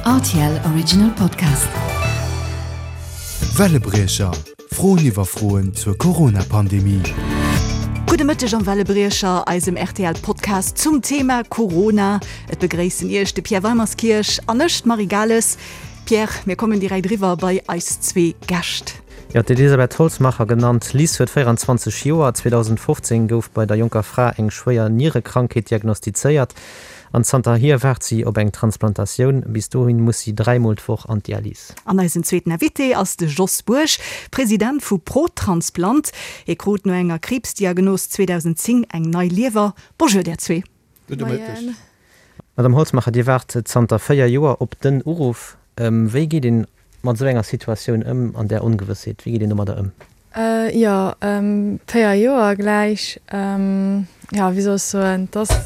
Rtl Original Podcast. Wellebriecher, Froen iwwer Froen zur Corona-Pandemie. Gudde Mëtteg am Wellebriecher, eisem RTL-Podcast zum Thema Corona. Et begréissen Iech de Pierre Weimerskirch an ech, d'Marie Gales. Pierre, mir kommen direkt eriwwer bei eis zwee Gäscht. Jo, d'Elisabeth Holzmacher, genannt Liz, huet 24 Joer. 2015 gouf bei der jonker Fra eng schwéier Nierekrankheet diagnostizéiert an zanterhier waart si op eng Transplantatioun. Bis dohin muss si 3 Mol d'Woch an d'Dialys. An eisen zweeten Invité ass de Jos Bourg, President vu ProTransplant. Hie krut no enger Kriibsdiagnos 2010 eng nei Liewer. Bonjour där zwee. Gudde Mëtteg. Madame Holzmacher, Dir waart zanter 4 Joer op den Uruff. Wéi geet een mat esou enger Situatioun ëm, an där Ongewëssheet? Wéi geet een domadder ëm? Jo, 4 Joer gläich. Jo, wéi soll ech soen, et ass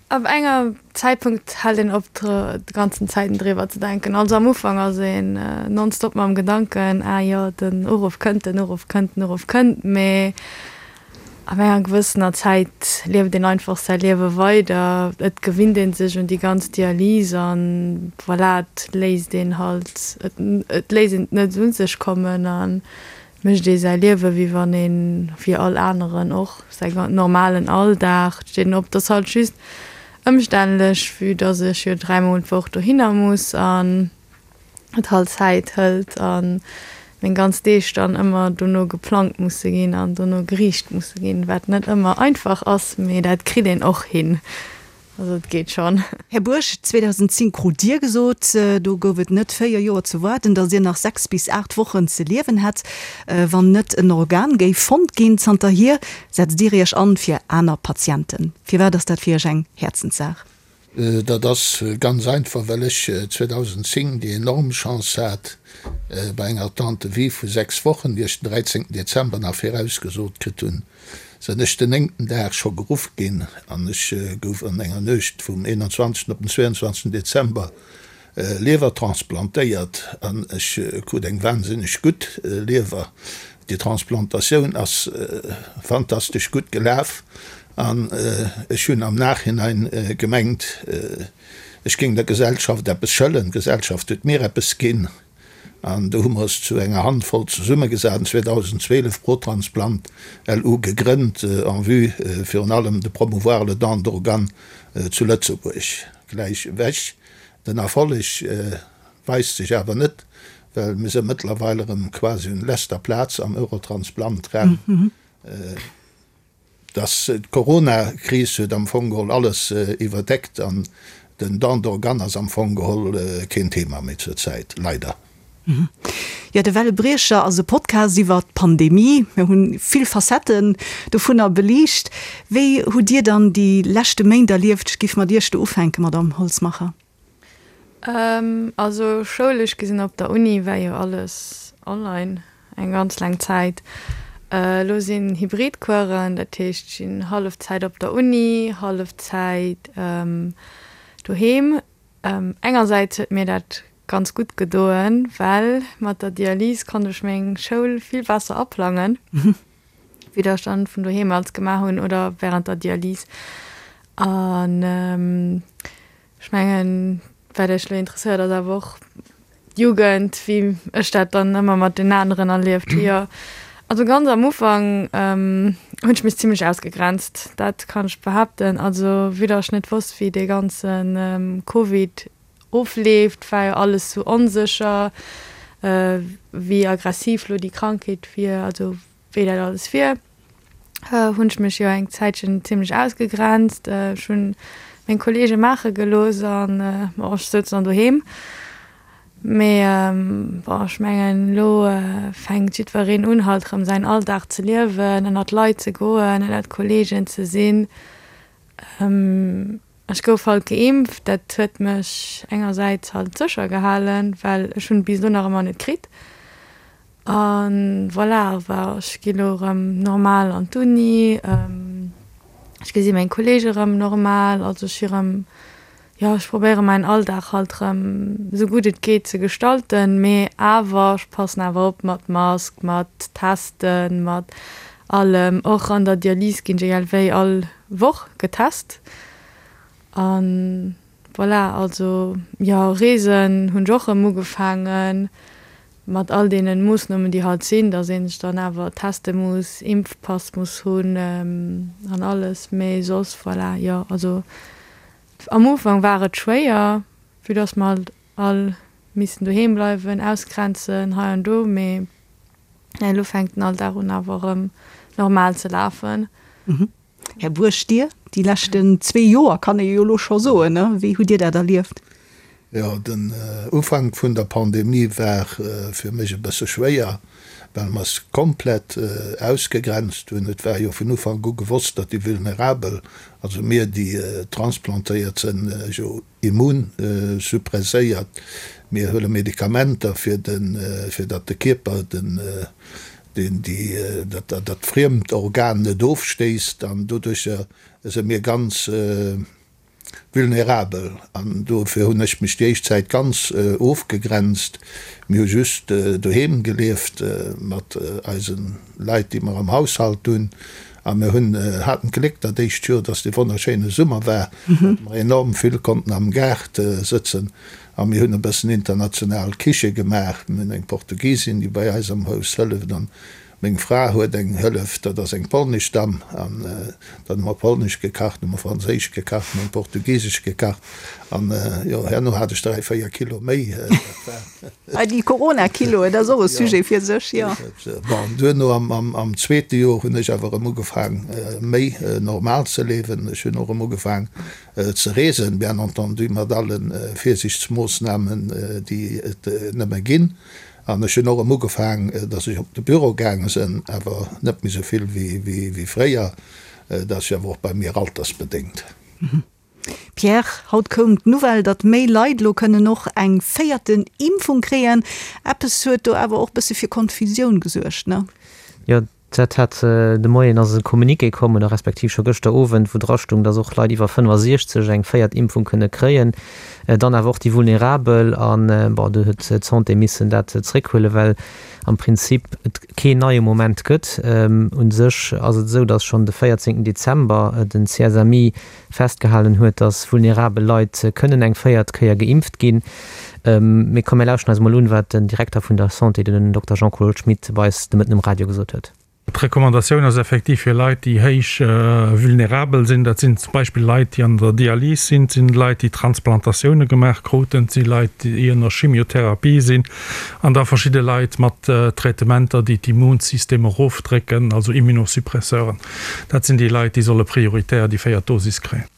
ab enger Zäitpunkt hält een op de ganzen Zäiten driwwer ze denken. Also am Ufank ass een nonstop mam Gedanken, ah jo, den Uruff kënnt, den Uruff kënnt, den Uruff kënnt, mee Ab enger gewëssener Zäit lieft een einfach säi Liewe weider, et gewinnt ee sech un déi ganz Dialys an voilà, et léisst een halt, et léisst een et net un sech kommen a mécht ee säi Liewe wéi wann een, wéi all aneren och, säi normalen Alldag. Et steet een op, et ass halt just ëmstännlech, vue dass ech jo dräimol d'Woch dohinner muss an. et halt Zäit hëlt a meng ganz Deeg dann ëmmer dono geplangt musse ginn an dono geriicht musse ginn, wat net ëmmer einfach ass, mee dat kritt een och hin, also et geet schonn. Här Bourg, 2010 krut Dir gesot, do gouf et net 4 Joer ze waarden, datt Dir nach 6 bis 8 Wochen ze liewen hätt, wann net en Organ géif fonnt ginn. Zanterhier setzt Dir Iech an fir aner Patienten. Firwat ass dat fir Iech eng Häerzenssaach? Dat ass ganz einfach, well ech 2010 déi enorm Chance hat, bei enger Attente de vie vu 6 Wochen, déi ech den 13 Dezember nach virausgesot kritt hunn, sinn ech den néngten Dag scho geruff ginn an ech gouf an enger Nuecht vum 21 op den 22 Dezember Liewer transplantéiert an ech krut eng wahnsinneg gutt Liewer. Déi Transplantatioun ass fantastesch gutt gelaf an ech hunn am Nachhinein gemengt, ech géing der Gesellschaft eppes schëllen. D'Gesellschaft huet mir eppes ginn an do hu mer eis zu enger Handvoll zesummegesat an 2012 ProTransplant LU gegrënnt en vue virun allem de promouvoir le don d'organes zu Lëtzebuerg. Gläich ewech Den Erfolleg weist sech awer net, well mir si mëttlerweil erëm quasi un leschter Plaz am Eurotransplant-Raum. Dass d'Corona-Kris huet am Fong geholl alles iwwerdeckt an den Don d'organes ass am Fong geholl keen Thema méi zur Zäit, leider. Jo, de Wellebriecher ass e Podcast iwwer d'Pandemie. Mir hunn vill Facetten dovunner beliicht. Wéi hutt Dir dann déi leschte Méint erlieft? Ech giff mat Iech do ufänken, Madamm Holzmacher. Also schoulesch gesinn op der Uni war jo alles online eng ganz laang Zäit. Elo sinn Hybridcoursen, dat heescht ech sinn hallef Zäit op der Uni, hallef Zäit doheem. Engersäits huet mir dat ganz gutt gedoen, well mat der Dialys konnt ech meng Schoul vill besser aplangen, wéi dat ech dann vun doheem als gemaach hunn oder während der Dialys. An ech mengen, wat iech elo interesséiert, ass awer och d'Jugend, wéi ech dat dann ëmmer mat den aneren erlieft hu. Jo, also ganz am Ufank hunn ech mech zimlech ausgegrenzt, dat kann ech behaapten. Also vue datt ech net wosst, wéi dee ganze Covid ofleeft, war jo alles sou onsécher, wéi aggressiv lo déi Krankheet wier, also wéi dat alles wier, hunn ech mech jo eng Zäitchen zimlech ausgegrenzt. Ech hunn meng Kollege maache gelooss an bon, ech souz dann doheem. Mee bon, ech mengen elo fänkt jiddwereen un halt erëm säin Alldag ze liewen, ënnert Leit ze goen, ënnert Kollegen ze sinn. Ech gouf halt geimpft, dat huet mech engersäits halt sécher gehalen, well ech hunn et bis elo nach ëmmer net kritt. A voilà, awer ech gi lo erëm normal an d'Uni, ech gesi meng Kolleege erëm normal, also ech si erëm, jo ech probéiere mäin Alldag halt erëm esou gutt et geet ze gestalten, mee awer ech passen awer op mat Mask, mat Testen, mat allem. Och an der Dialys ginn ech egal wéi all Woch getest an. Voilà, also jo, Reesen hunn ech och erëm ugefaangen, mat all deenen Moossnomen déi halt sinn, dass een sech dann awer teste muss, Impfpass muss hunn an alles, mee soss voilà, jo, also am Ufank war et schwéier, vue dass mer halt all missten doheem bleiwen, ausgrenzen hei an do, mee elo fänkt den Alldag un awer erëm normal ze lafen. Här Buerg, Dir, déi leschten zwee Joer, kann ee jo elo scho soen, ne? Wéi hutt Dir dat erlieft? Jo, den Ufank vun der Pandemie war fir mech e bësse schwéier, well mer es komplett ausgegrenzt hunn. Et war jo vun Ufank u gewosst, datt déi Vulnerabel, also mir, déi transplantéiert sënn, jo immunsuppresséiert, mir huele Medikamenter, fir den, fir datt de Kierper den, deen déi, dat, dat friemt Organ net ofstéisst an doduercher si mir ganz vulnerabel an dofir hunn ech mech déi éischt Zäit ganz ofgegrenzt. Mir hu just doheem gelieft mat eise Leit, déi mer am Haushalt hunn a mir hunn, haten d'Gléck dat éischt Joer, dass dee wonnerschéine Summer war, datt mer enorm vill konnten am Gaart sëtzen A mir hunn e bëssen international Kiche gemaach. Mir hunn eng Portugisin, déi bei eis am Haus hëlleft, an meng Fra huet eng Hëllef, dat ass eng polnesch Damm. An dann hu mer polnesch gekacht, hu mer franséisch gekacht, hu mer portugisesch gekacht. An jo, herno hat ech 3, 4 Kilo méi. Dat war. Ah, déi Corona-Kiloen, dat ass och e Sujet fir sech, jo. Bon, duerno am zweete Joer hunn ech awer erëm ugefaang, méi normal ze liewen. Ech hunn och erëm ugefaang, ze reesen, bien entendu mat alle Virsiichtsmoossnamen, déi et nëmme ginn. An ech hunn och erëm ugefaang, datt ech op de Büro gaange sinn, awer net méi esou vill wéi fréier. Dat ass jo awer och bei mir altersbedéngt. Pierre, haut koum d'Nouvelle, datt méi Leit elo kënnen och eng véierten Impfung kréien. Eppes huet do awer och bësse fir Konfusioun gesuergt, ne? Jo, Dat hat de Moien ass e Communiqué komm, oder respektiv scho gëschter Owend, wou dra stung, datt och Leit iwwer 65 eng véiert Impfung kënne kréien, dann awer och déi Vulnerabel. An, bon, do huet d'Santé missen dat zréckhuelen, well am Prinzip et keen neie Moment gëtt. U sech ass et esou, datt schonn de 14 Dezember den CSMI festgehalen huet, datt vulnerabel Leit kënnen eng véiert Kéier geimpft ginn. Mee komm mir lauschten eis emol un, wat den Direkter vun der Santé, den Dokter Jean-Claude Schmit, bei eis de Mëtten um Radio gesot huet. D'Recommandatioun ass effektiv fir Leit, déi héich vulnerabel sinn. Dat sinn zum Beispill Leit, déi an der Dialys sinn, et sinn Leit, déi Transplantatioune gemaach kruten, et si Leit, déi ënner Chimiotherapie sinn an da verschidde Leit mat Traitementer, déi d'Immunsystem erofdrécken, also Immunosuppresseuren. Dat sinn déi Leit, déi solle prioritär déi véiert Dosis kréien.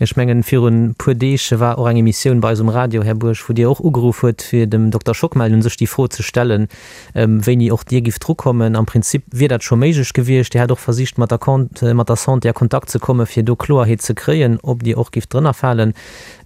Ech mengen, virun e puer Deeg war och eng Emissioun bei eis um Radio, Här Buerg, wou Dir och ugeruff huet, fir dem Dokter Schockmel un sech déi Fro ze stellen, wéini och Dir gifft drukommen. Am Prinzip wier dat scho méiglech gewiescht. Dir hat och versicht, mat der mat der Santé a Kontakt ze kommen, fir do Kloerheet ze kréien, ob Dir och gifft drënnerfalen.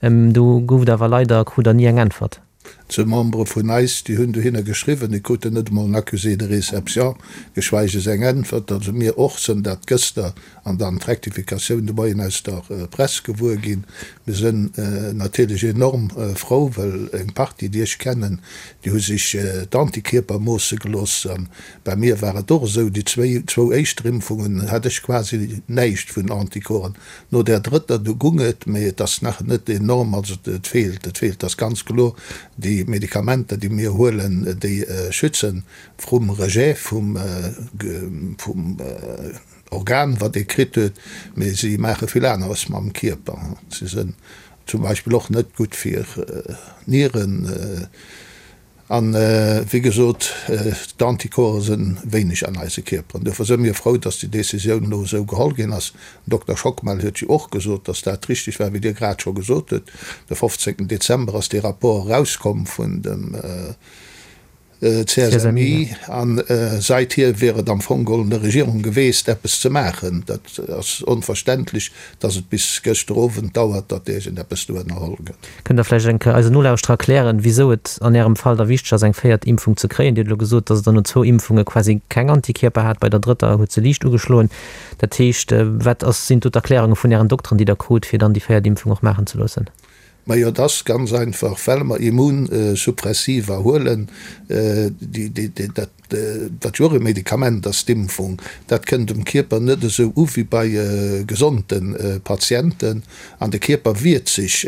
Do gouf et awer leider, krut Der ni eng Äntwert. Zwou Membere vun eis, déi hunn dohinner geschriwwen, déi kruten net emol en Accusé de réception, geschweiges eng Äntwert. Also mir och sënn dat gëster an dann d'Rectificatioun de Moien aus der Press gewuer ginn. Mir sënn natierlech enorm frou, well eng Partie, déi ech kennen, déi hu sech d'Antikierper moosse gelooss. A bei mir war et och esou, déi zwéi, zwou éischter Impfungen hat ech quasi näischt vun Anticorpsen. No där drëtter, du gung et, mee et ass nach net enorm, also et feelt, et feelt, ass ganz kloer. Déi Medikamenter, déi mir huelen, déi schützen vrum Rejet vum, vum Organ, wat ee kritt huet, mee si maache vill aneres mam Kierper. Si sënn zum Beispill och net gutt fir d'Nieren. An, wéi gesot, d'Anticorpse sënn wéineg an eise Kierperen. Duerfir sënn mir frou, dass déi Décisioun elo esou geholl ginn ass. Den Dokter Schockmel huet jo och gesot, dass dat richtig war, wéi Dir grad scho gesot hutt. De 15. Dezember ass dee Rapport erauskomm vun dem CSMI a seithier wier et am Fong geholl un der Regierung geweest, eppes ze maachen. Dat ass onverständlech, dass et bis gëschter Owend dauert, datt iergendeppes do ënnerholl gëtt. Kënnt Der vläicht eng Kéier eisen Nolauschterer erklären, wisou et an Ärem Fall da wichteg ass, eng véiert Impfung ze kréien? Dir hutt elo gesot, dass Der no zwou Impfunge quasi keng Antikierper hat, bei der drëtter huet se liicht ugeschloen. Dat heescht, wat ass, sinn do d'Erklärunge vun Ären Dokteren, déi Der krut, fir dann déi véiert Impfung och maachen ze loossen? Majo, et ass ganz einfach, well mer Immunsuppressiva huelen, déi, déi, dat. Wat jo och e Medikament ass, d'Impfung, dat kënnt um Kierper net esou u wéi bei gesonde Patienten. An de Kierper wiert sech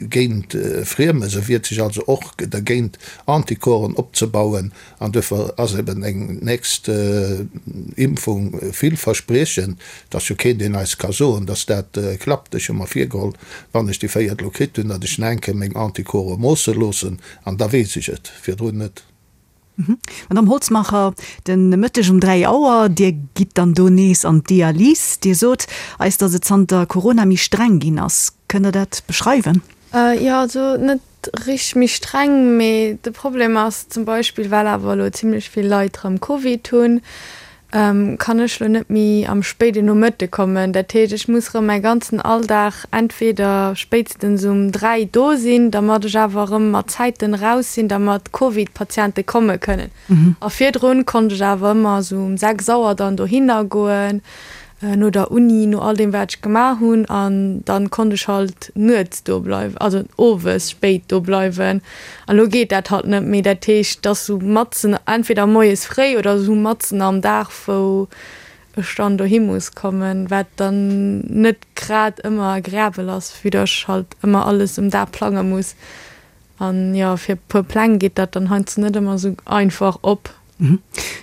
géint Friemes, e wiert sech also och dergéint, Anticorpsen opzebauen. An duerfir ass eben eng nächst Impfung villverspriechend. Et ass jo keen, deen eis ka soen, datt dat klappt. Ech hu mer virgeholl, wann ech déi véiert elo kritt hunn, datt ech nach eng Kéier meng Anticorpse moosse loossen, an da weess ech et, virdrun net. Madamm Holzmacher, de Mëtteg um 3 Auer, Dir gitt dann do nees an d'Dialys. Dir sot eis, datt et zanter Corona méi streng ginn ass. Kënnt Der dat beschreiwen? Jo, also net richteg méi streng, mee de Problem ass zum Beispill, well awer elo zimlech vill Leit erëm Covid hunn, kann ech lo net méi am spéiden Nomëtte kommen. Dat heescht, ech muss erëm mäi ganzen Alldag entweder spéitstens um 3 do sinn, dermat ech awer erëm mat Zäiten eraus sinn, dermat d'Covid-Patiente komme kënnen. A virdrun konnt ech awer ëmmer esou um 6 Auer dann dohinner goen, no der Uni, no all deem wat ech gemaach hunn, an dann konnt ech halt nuets do bleiwen, also owes spéit do bleiwen. An elo geet dat halt net méi. Dat heescht, et ass sou matzen, entweder moies fréi oder sou matzen am Dag, wou ech dann dohi muss kommen, wat dann net grad ëmmer agreabel ass, vue dass ech halt ëmmer alles um Dag plange muss. An jo, fir e puer Pläng geet dat dann heiansdo net ëmmer sou einfach op.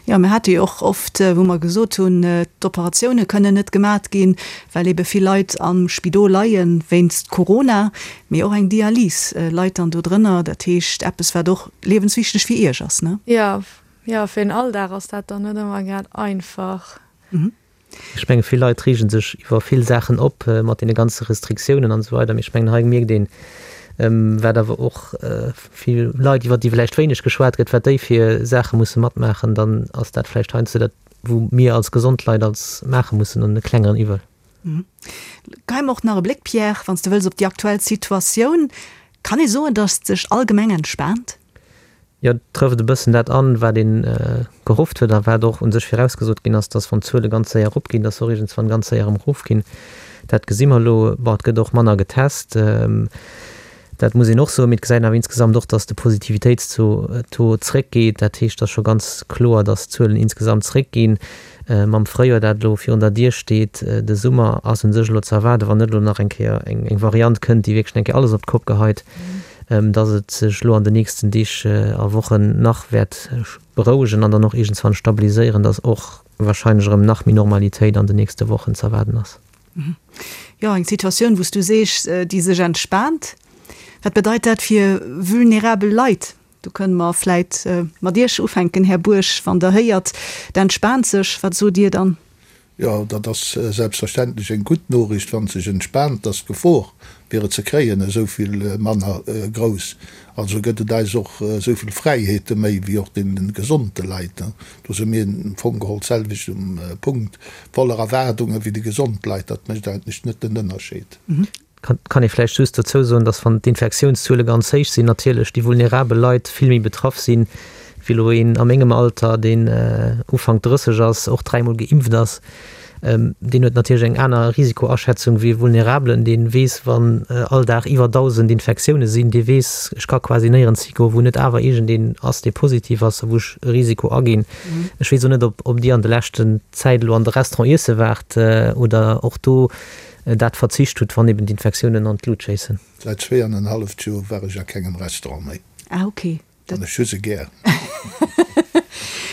Jo, mir hate jo och oft, wou mer gesot hunn, d'Operatioune kënnen net gemat ginn, well ebe vill Leit am Spidol leie wéinst Corona. Mee och eng Dialys leit dann do drënner. Dat heescht, eppes, wat och liewenswichteg fir Iech ass, ne? Jo, jo, fir den Alldag ass dat dann net ëmmer grad einfach. Ech menge vill Leit reege sech iwwer vill Saachen op mat deene ganze Restriktiounen an esou weider, mee ech mengen hei mierkt een, wat awer och vill Leit, iwwer déi vläicht wéineg geschwat gëtt, wat déi fir Saache musse matmaachen, dann ass dat vläicht heiansdo dat, wou mir als gesond Leit als maache mussen an e klengeren Iwwel. Geheim och nach e Bléck, Pierre, wann s de wëlls, op déi aktuell Situatioun. Kann ee soen, datt sech allgemeng entspaant? Jo, et trëfft e bëssen dat an, wat ee gehofft huet a wat och u sech virausgesot ginn ass, dass wann d'Zuele ganz séier eropginn, dass se och iergendswann ganz séier erëm erofginn. Dat gesi mer elo. Bon, et gëtt och manner getest, dat muss een och soen, mee et gesäit een awer insgesamt och, dass de Positivitéitstaux zréckgeet. Dat heescht, et ass scho ganz kloer, dass d'Zuelen insgesamt zréckginn. Mam Fréijoer, dat elo virun der Dier steet, de Summer ass u sech elo ze erwaarden, wann net elo nach eng Kéier eng Variant kënnt, déi wierklech eng Kéier alles op d'Kopp geheit, dass et sech elo an den nächsten Deeg a Wochen nach wäert berouegen an dann och iergendswann stabiliséieren, dass och wahrscheinlech erëm nach méi Normalitéit an den nächste Wochen ze erwaarden ass. Jo, eng Situatioun, wou s du sees, déi sech entspaant. Wat bedeit dat fir vulnerabel Leit? Do kënne mer vläit mat Iech ufänken, Här Buerg. Wann Der héiert, et entspaant sech, wat sot Dir dann? Jo, dat ass selbstverständlech eng gutt Noriicht. Wann et sech entspaant, ass d'Gefor, fir et ze kréien, esou vill manner grouss. Also gëtt et eis och esou vill Fräiheete méi wéi och deene gesonde Leit. Do si mir am Fong geholl d'selwecht um Punkt, voller Erwaardunge wéi déi gesond Leit. Dat mécht eigentlech net den Ënnerscheed. Kann ee vläicht just dozou soen, dass wann d'Infektiounszuele ganz héich sinn, natierlech déi vulnerabel Leit vill méi betraff sinn, wéi elo een a mengem Alter, deen Ufank 30 ass, och dräimol geimpft ass. Deen huet natierlech eng aner Risikoaschätzung wéi e Vulnerabelen, dee weess, wann all Dag iwwer 1.000 Infektioune sinn, dee weess, ech ka quasi néierens higoen, wou net awer iergendeen ass, dee positiv ass a wou ech e Risiko aginn. Ech weess och net, ob Dir an de leschten Zäit elo an de Restaurant iesse waart oder och do dat verzicht hutt, wann eben d'Infektiounen an d'Lut schéissen. Säit zweeanenhalleft Joer war ech a kengem Restaurant méi. Ah ok. An ech hu se gär.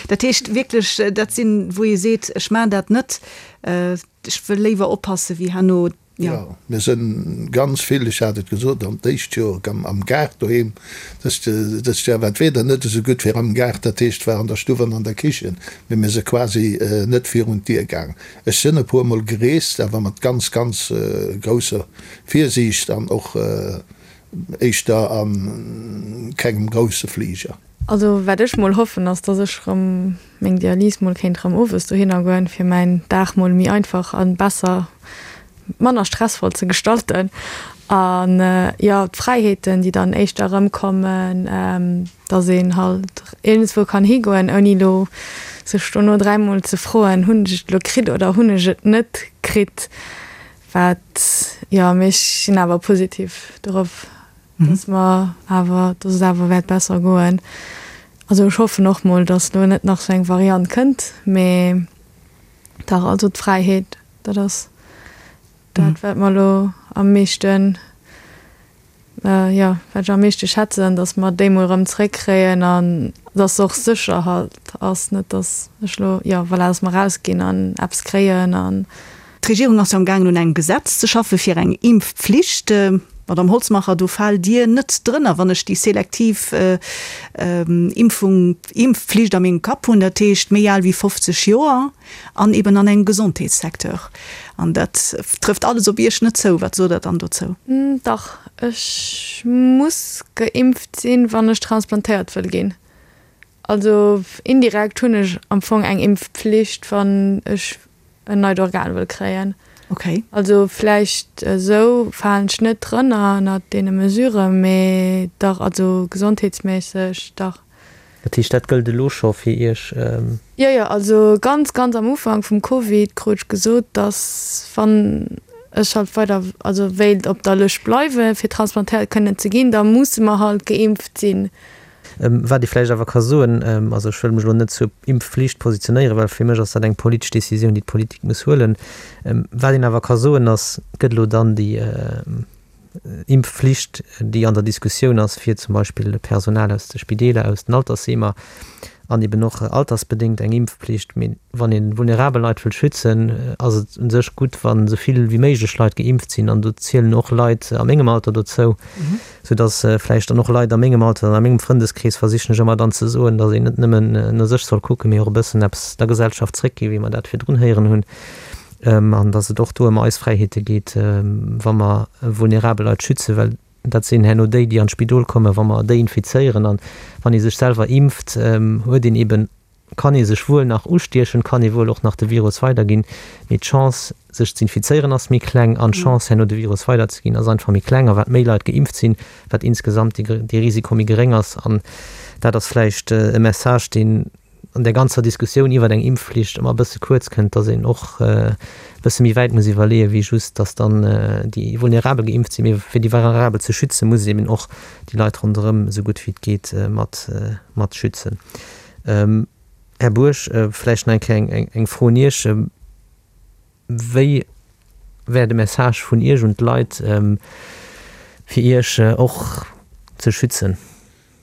Dat heescht wierklech, dat sinn, wou ee seet, ech maachen dat net, ech wëll léiwer oppasse wéi herno, jo. Jo, mir sënn ganz vill, ech hat et gesot, an d'éischt Joer am Gaart doheem. Dëst dëst Joer war d'Wieder net esou gutt fir am Gaart, dat heescht war an der Stuff an an der Kichen, mee mir si quasi net virun d'Dier gaang. Ech sinn e puer mol gereest, awer mat ganz, ganz grousser Virsiicht an och éischter a kengem grousse Fliger. Also wat ech mol hoffen ass, dass ech rëm meng Dialys mol kéint rëm owes dohinner goen, fir mäin Dag mol méi einfach an besser, manner stressvoll ze gestalten. An jo, d'Fräiheeten déi dann éischter erëmkommen, dass een halt iergendswou kann higoen, ouni elo sech dono dräimol ze froen, hunn ech et elo kritt oder hunn ech et net kritt. Wat, jo, mee ech sinn awer positiv dorop, dass mer awer, dass et awer wäert besser goen. Also ech hoffen och mol, datt elo net nach sou eng Variant kënnt, mee dach, also d'Fräiheet, dat ass dat wat mer elo am meeschten, jo, wat ech am meeschte schätzen, datt mer déi mol erëm zréckkréien an datt se och sécher halt ass, net datt ech elo, jo voilà, datt mer erausginn an eppes kréien an. D'Regierung ass jo am gaangen un engem Gesetz ze schaffe fir eng Impfpflicht. Madame Holzmacher, do faalt Dir net drënner, wann ech déi selektiv Impfung, Impfpflicht a mengem Kapp hunn, dat heescht méi al wéi 50 Joer an eben an engem Gesondheetssecteur. An dat trëfft alles op Iech net zou. Wat sot Der dann dozou? Dach, ech muss geimpft sinn, wann ech transplantéiert wëll ginn. Also indirekt hunn ech am Fong eng Impfpflicht, wann ech en neit Organ wëll kréien. Okay. Also vläicht esou falen ech net drënner ënnert deene Mesuren, mee dach, also gesondheetsméisseg dach. Dat heescht, dat gëllt elo scho fir Iech? Jo, jo, also ganz, ganz am Ufank vum Covid krut ech gesot, dass wann ech halt weider, also wéilt op der Lëscht bleiwen, fir transplantéiert kënnen ze ginn, da musse mer halt geimpft sinn. Wat ee vläicht awer ka soen, also ech wëll mech elo net zur Impfflicht positionéieren, well fir mech ass dat eng politesch Décisioun, déi d'Politik muss huelen. Wat een awer ka soen ass, et gëtt elo dann déi Impfflicht, déi an der Diskussioun ass fir zum Beispill Personal aus de Spideeler, aus den Altersheemer an eben och altersbedéngt eng Impfpflicht. Mee wann ee vulnerabel Leit wëll schützen, ass et u sech gutt, wa sou vill wéi méiglech Leit geimpft sinn. An do zielen och Leit a mengem Alter dozou. Sou dass vläicht dann och Leit a mengem Alter an a mengem Frëndeskrees versichen ech ëmmer dann ze soen, dass een net nëmmen no sech soll kucken, mee och e bëssen eppes der Gesellschaft zréckginn, wéi mer dat virdrun héieren hunn, an dass et och do ëm eis Fräiheete geet, wa mer vulnerabel Leit schützen, well dat sinn herno déi, déi an d'Spidol kommen, wa mer déi infizéieren. An wann ee sech selwer impft, huet een eben kann ee sech wuel nach ustiechen, kann ee wuel och nach de Virus weiderginn, mee d'Chance sech z'infizéieren ass méi kleng an d'Chance herno de Virus weiderzeginn ass einfach méi kleng. A wat méi Leit geimpft sinn, wat insgesamt dee Risiko méi geréng ass. An dat ass vläicht e Message, deen an där ganzer Diskussioun iwwert eng Impfflicht ëmmer e bësse kuerz kënnt, datt een och e bësse méi wäit muss iwwerleeën, wéi just, datt dann déi Vulnerabel geimpft sinn. Mee fir déi Vulnerabel ze schützen, muss een eben och déi Leit ronderëm esou gutt wéi et geet mat schützen. Här Buerg, vläicht nach eng Kéier eng Fro un Iech. Wéi wär de Message vun Iech un d'Leit, fir Iech och ze schützen?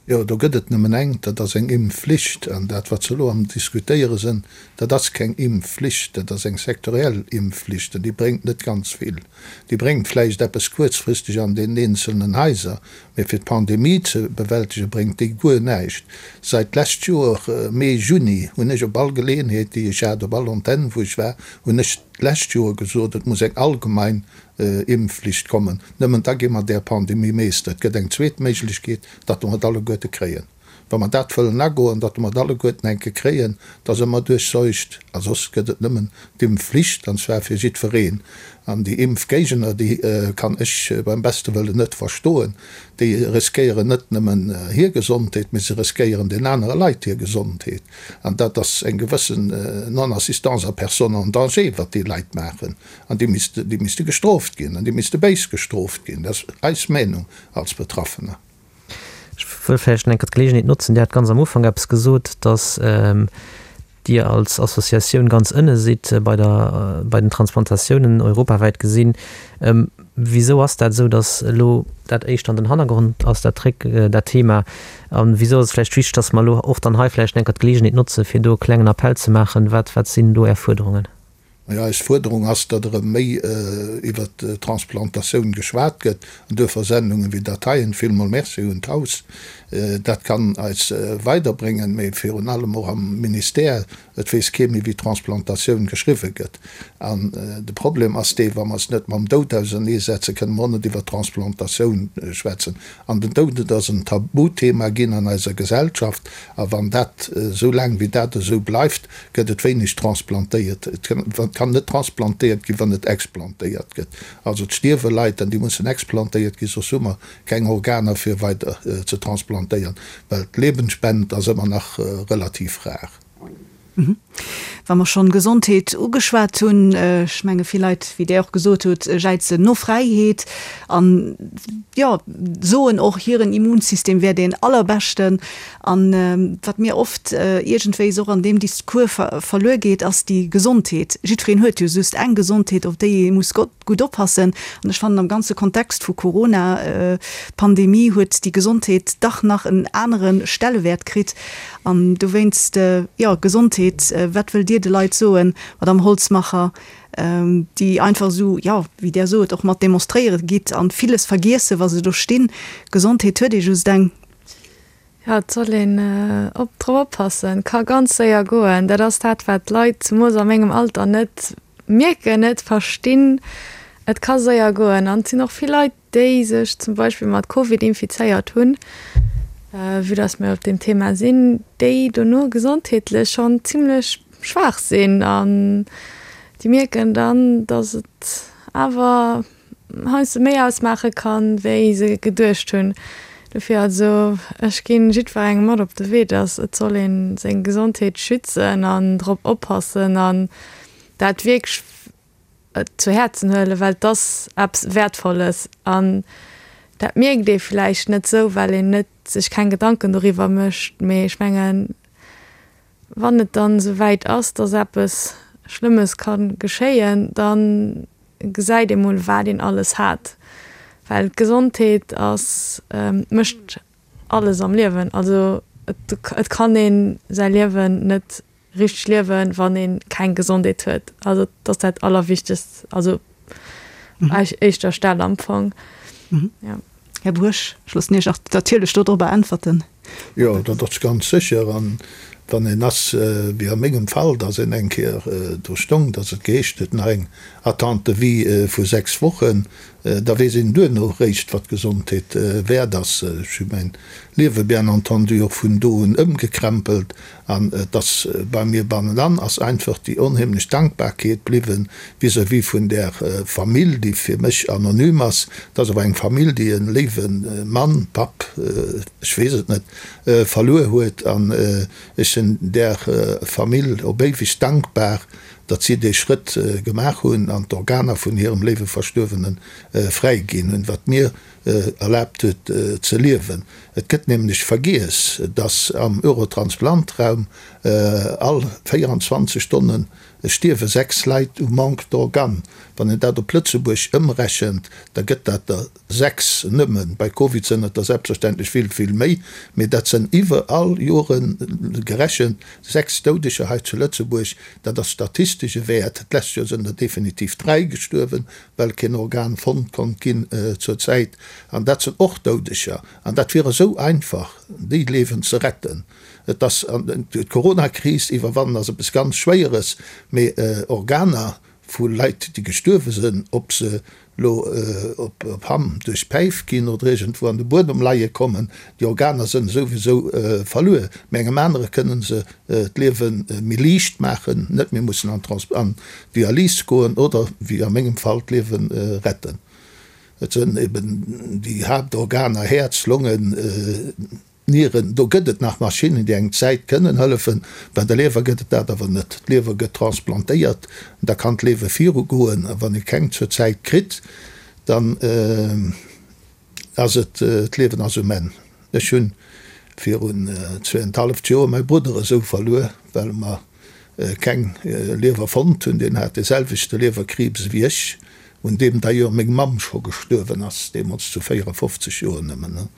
Jo, do gëtt et nëmmen eng, dat ass eng Impfflicht. An dat, wat se elo am Diskutéiere sinn, dat ass keng Impfflicht, dat ass eng sektoriell Impfflicht an déi bréngt net ganz vill. Déi bréngt vläicht eppes kuerzfristeg an deenen eenzelnen Haiser, Mee fir d'Pandemie ze bewältege bréngt déi guer näischt. Seit d'lescht Joer Mee, Juni hunn ech op all Geleeënheet déi ech hat, op all Antenn wou ech war, hunn ech d'lescht Joer gesot, et muss eng allgemein Impfflicht kommen. Nëmmen da gi mer där Pandemie Meester. Et gëtt eng zweet Méiglechkeet, datt mer et alleguerte kréien. Wa mer dat wëllen agoen, datt mer et alleguerten eng Kéier kréien, da se mer duerchseucht. A soss gëtt et nëmmen d'Impfflicht, an zwar fir jiddwereen. An déi Impfgéigner, déi kann ech beim beste Wëllen net verstoen. Déi riskéieren net nëmmen hir Gesondheet, mee se riskéieren den anere Leit hir Gesondheet. An dat ass eng gewëssen Non-assistance à personne en danger, wat déi Leit maachen. An déi misste, déi misste gestrooft ginn. An déi misste béis gestrooft ginn. Dat ass eis Meenung als Betraffener. Ech wëll vläicht nach eng Kéier d'Geleegenheet notzen, Dir hat ganz am Ufank eppes gesot, dass Dir als Associatioun ganz ënne sidd bei der, bei den Transplantatiounen europawäit gesinn. Wisou ass dat esou, dass elo dat éischter an den Hannergrond ass, dat Tréck, dat Thema? A wisou ass et vläicht wichteg, dass mer elo och dann hei vläicht eng Kéier d'Geleegenheet notzen, fir do e klengen Appell ze maachen? Wat, wat sinn do Är Fuerderungen? Majo, eis Fuerderung ass, datt erëm méi iwwert d'Transplantatioun geschwat gëtt, an duerfir Sendungen wéi dat heien. Villmol Merci un d'Haus, dat kann eis weiderbréngen, mee virun allem och am Ministère, et weess kee méi wéi Transplantatioun geschriwwe gëtt. An de Problem ass dee, wa mer eis net mam Doud auserneesetzen, kënne mer och net iwwer Transplantatioun schwätzen. An den Doud, et ass en Tabuthema ginn an eiser Gesellschaft. A wann dat, esou laang wéi dat esou bleift, gëtt et wéineg transplantéiert. Et kann net transplantéiert ginn, wann net explantéiert gëtt. Also et stierwe Leit an déi mussen explantéiert ginn, soss hu mer keng Organer fir weider ze transplantéieren, well d'Lebensspend ass ëmmer nach relativ rar. Wa mer schonn Gesondheet ugeschwat hunn, ech menge vill Leit, wéi Der och gesot hutt, jäizen no Fräiheet an, jo, soen och, hiren Immunsystem wär deen allerbeschten. An wat mir oft iergendwéis och an deem Discours verluer geet, ass déi Gesondheet. Jiddwereen huet jo just eng Gesondheet, op déi ee muss gutt oppassen. An ech fannen, am ganze Kontext vu Corona-Pandemie huet déi Gesondheet dach nach en anere Stellewäert kritt. An dowéinst, jo, Gesondheet, wat wëllt Dir de Leit soen, Madamm Holzmacher, déi einfach esou, jo, wéi Der sot, och mat demonstréiere gitt an villes vergiessen, wa se do stinn? Gesondheet huet ee just eng. Jo, et soll een op drop oppassen. Ka ganz séier goen. Dat ass dat, wat d'Leit, zemoos a mengem Alter, net mierken, net verstinn. Et ka séier goen. An et sinn och vill Leit, déi sech zum Beispill mat Covid infizéiert hunn, vue dass mir op deem Thema sinn, déi dono gesondheetlech schonn zimlech schwaach sinn. An déi mierken dann, dass et awer heiansdo méi ausmaache kann, wéi se geduecht hunn. Dofir also, ech ginn jiddwerengem mat op de Wee, dass et soll ee seng Gesondheet schützen an drop oppassen an dat wierklech zu Häerzen huelen, well et ass eppes Wäertvolles an dat mierkt ee vläicht net esou, well een net sech keng Gedanken doriwwer mécht. Mee ech mengen, wann et dann esou wäit ass, dass eppes Schlëmmes ka geschéien, da gesäit ee mol, wat een alles hat. Well d'Gesondheet ass, mécht alles am Liewen. Also et kann ee säi Liewen net richteg liewen, wann ee keng Gesondheet huet. Also et ass dat Allerwichtegst, also éischter Stell am Fong. Jo. Här Buerg, ech loossen Iech och natierlech dodrobber äntwerten. Jo, dat ass ganz sécher. An wann een ass, wéi a mengem Fall, datt een eng Kéier do stong, datt et geheescht huet, nach eng Attente de vie vu 6 Wochen, da weess een duerno réischt, wat d'Gesondheet wäert ass. Ech hu mäin Liewe bien entendu och vun do un ëmgekrempelt An et ass bei mir bannenan ass einfach déi onheemlech Dankbarkeet bliwwen vis-à-vis vun där Famill, déi fir mech anonym ass. Et ass awer eng Famill, déi e léiwe Mann, Papp, ech weess et net, verluer huet. An ech sinn där Famill op éiweg dankbar, datt si dee Schrëtt gemaach hunn an d'Organer vun hirem léiwe Verstuerwene fräiginn hunn, wat mir erlaabt huet ze liewen. Et gëtt nämlech vergiess, dass am Eurotransplantraum all 24 Stonne stierwe 6 Leit u Manque d'organes. Wann een dat op Lëtzebuerg ëmrechent, da gëtt dat der 6 nëmmen. Bei Covid sënn et der selbstverständlech vill, vill méi, mee dat sënn iwwer all Jore gerechent 6 Doudeger hei zu Lëtzebuerg. Dat ass statistesch e Wäert. D'lescht Joer sënn der definitiv 3 gestuerwen. well keen Organ fonnt konnt ginn zur Zäit, an dat sinn och Doudeger, an dat wier esou einfach, déi Liewen ze retten. Et ass, d'Coronakris iwwerwannen ass eppes ganz Schwéieres, mee Organer vu Leit, déi gestuerwe sinn, ob se lo op Hamm duerch d'Päif ginn oder iergendwou an de Buedem leie kommen, déi Organer sënn souwisou verluer, mee engem anere kënnen se d'Liewe méi liicht maachen, net méi mussen an d'Dialys goen oder, wéi a mengem Fall, d'Liewe retten. Et sënn eben déi Haaptorganer, Häerz, Longen, Nieren, do gëtt et nach Maschinnen, déi eng Zäit kënnen hëllefen. Bei der Liewer gëtt et dat awer net. D'Liewer gëtt transplantéiert, da kann d'Liewe virugoen. A wann ee keng zur Zäit kritt, dann ass et, d'Liewen ass um Enn. Ech hunn virun zweeënhaleft Joer mäi Brudder esou verluer, well mer keng Liewer fonnt hunn. Deen hat dee selwechte Liewerkriibs ewéi ech, un deem d'ailleurs meng Mamm scho gestuerwen ass, deemools zu 54 Joer nëmmen.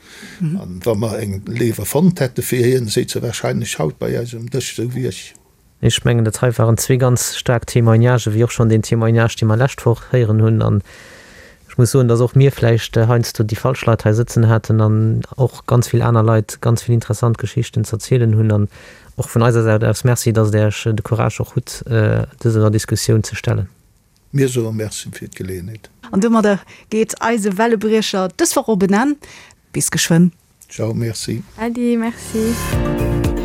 An wa mer eng Liewer fonnt hätte fir hien, séiz e wahrscheinlech haut bei eis um Dësch, esou wéi ech. Ech mengen, dat hei waren zwee ganz staark Témoignagen, wéi och schonn deen Témoignage, dee mer lescht Woch héieren hunn. An ech muss soen, dass och mir vläicht heiansdo déi falsch Leit hei sëtzen haten an och ganz vill aner Leit ganz vill interessant Geschichten z'erzielen hunn. An och vun eiser Säit aus Merci, dass Der Iech de Courage och hutt, dëser Diskussioun ze stellen. Mir soe Merci fir d'Geleeënheet. An domadder geet eise Wellebriecher dës Woch op en Enn. Bis geschwënn. Ciao, merci. Äddi, merci.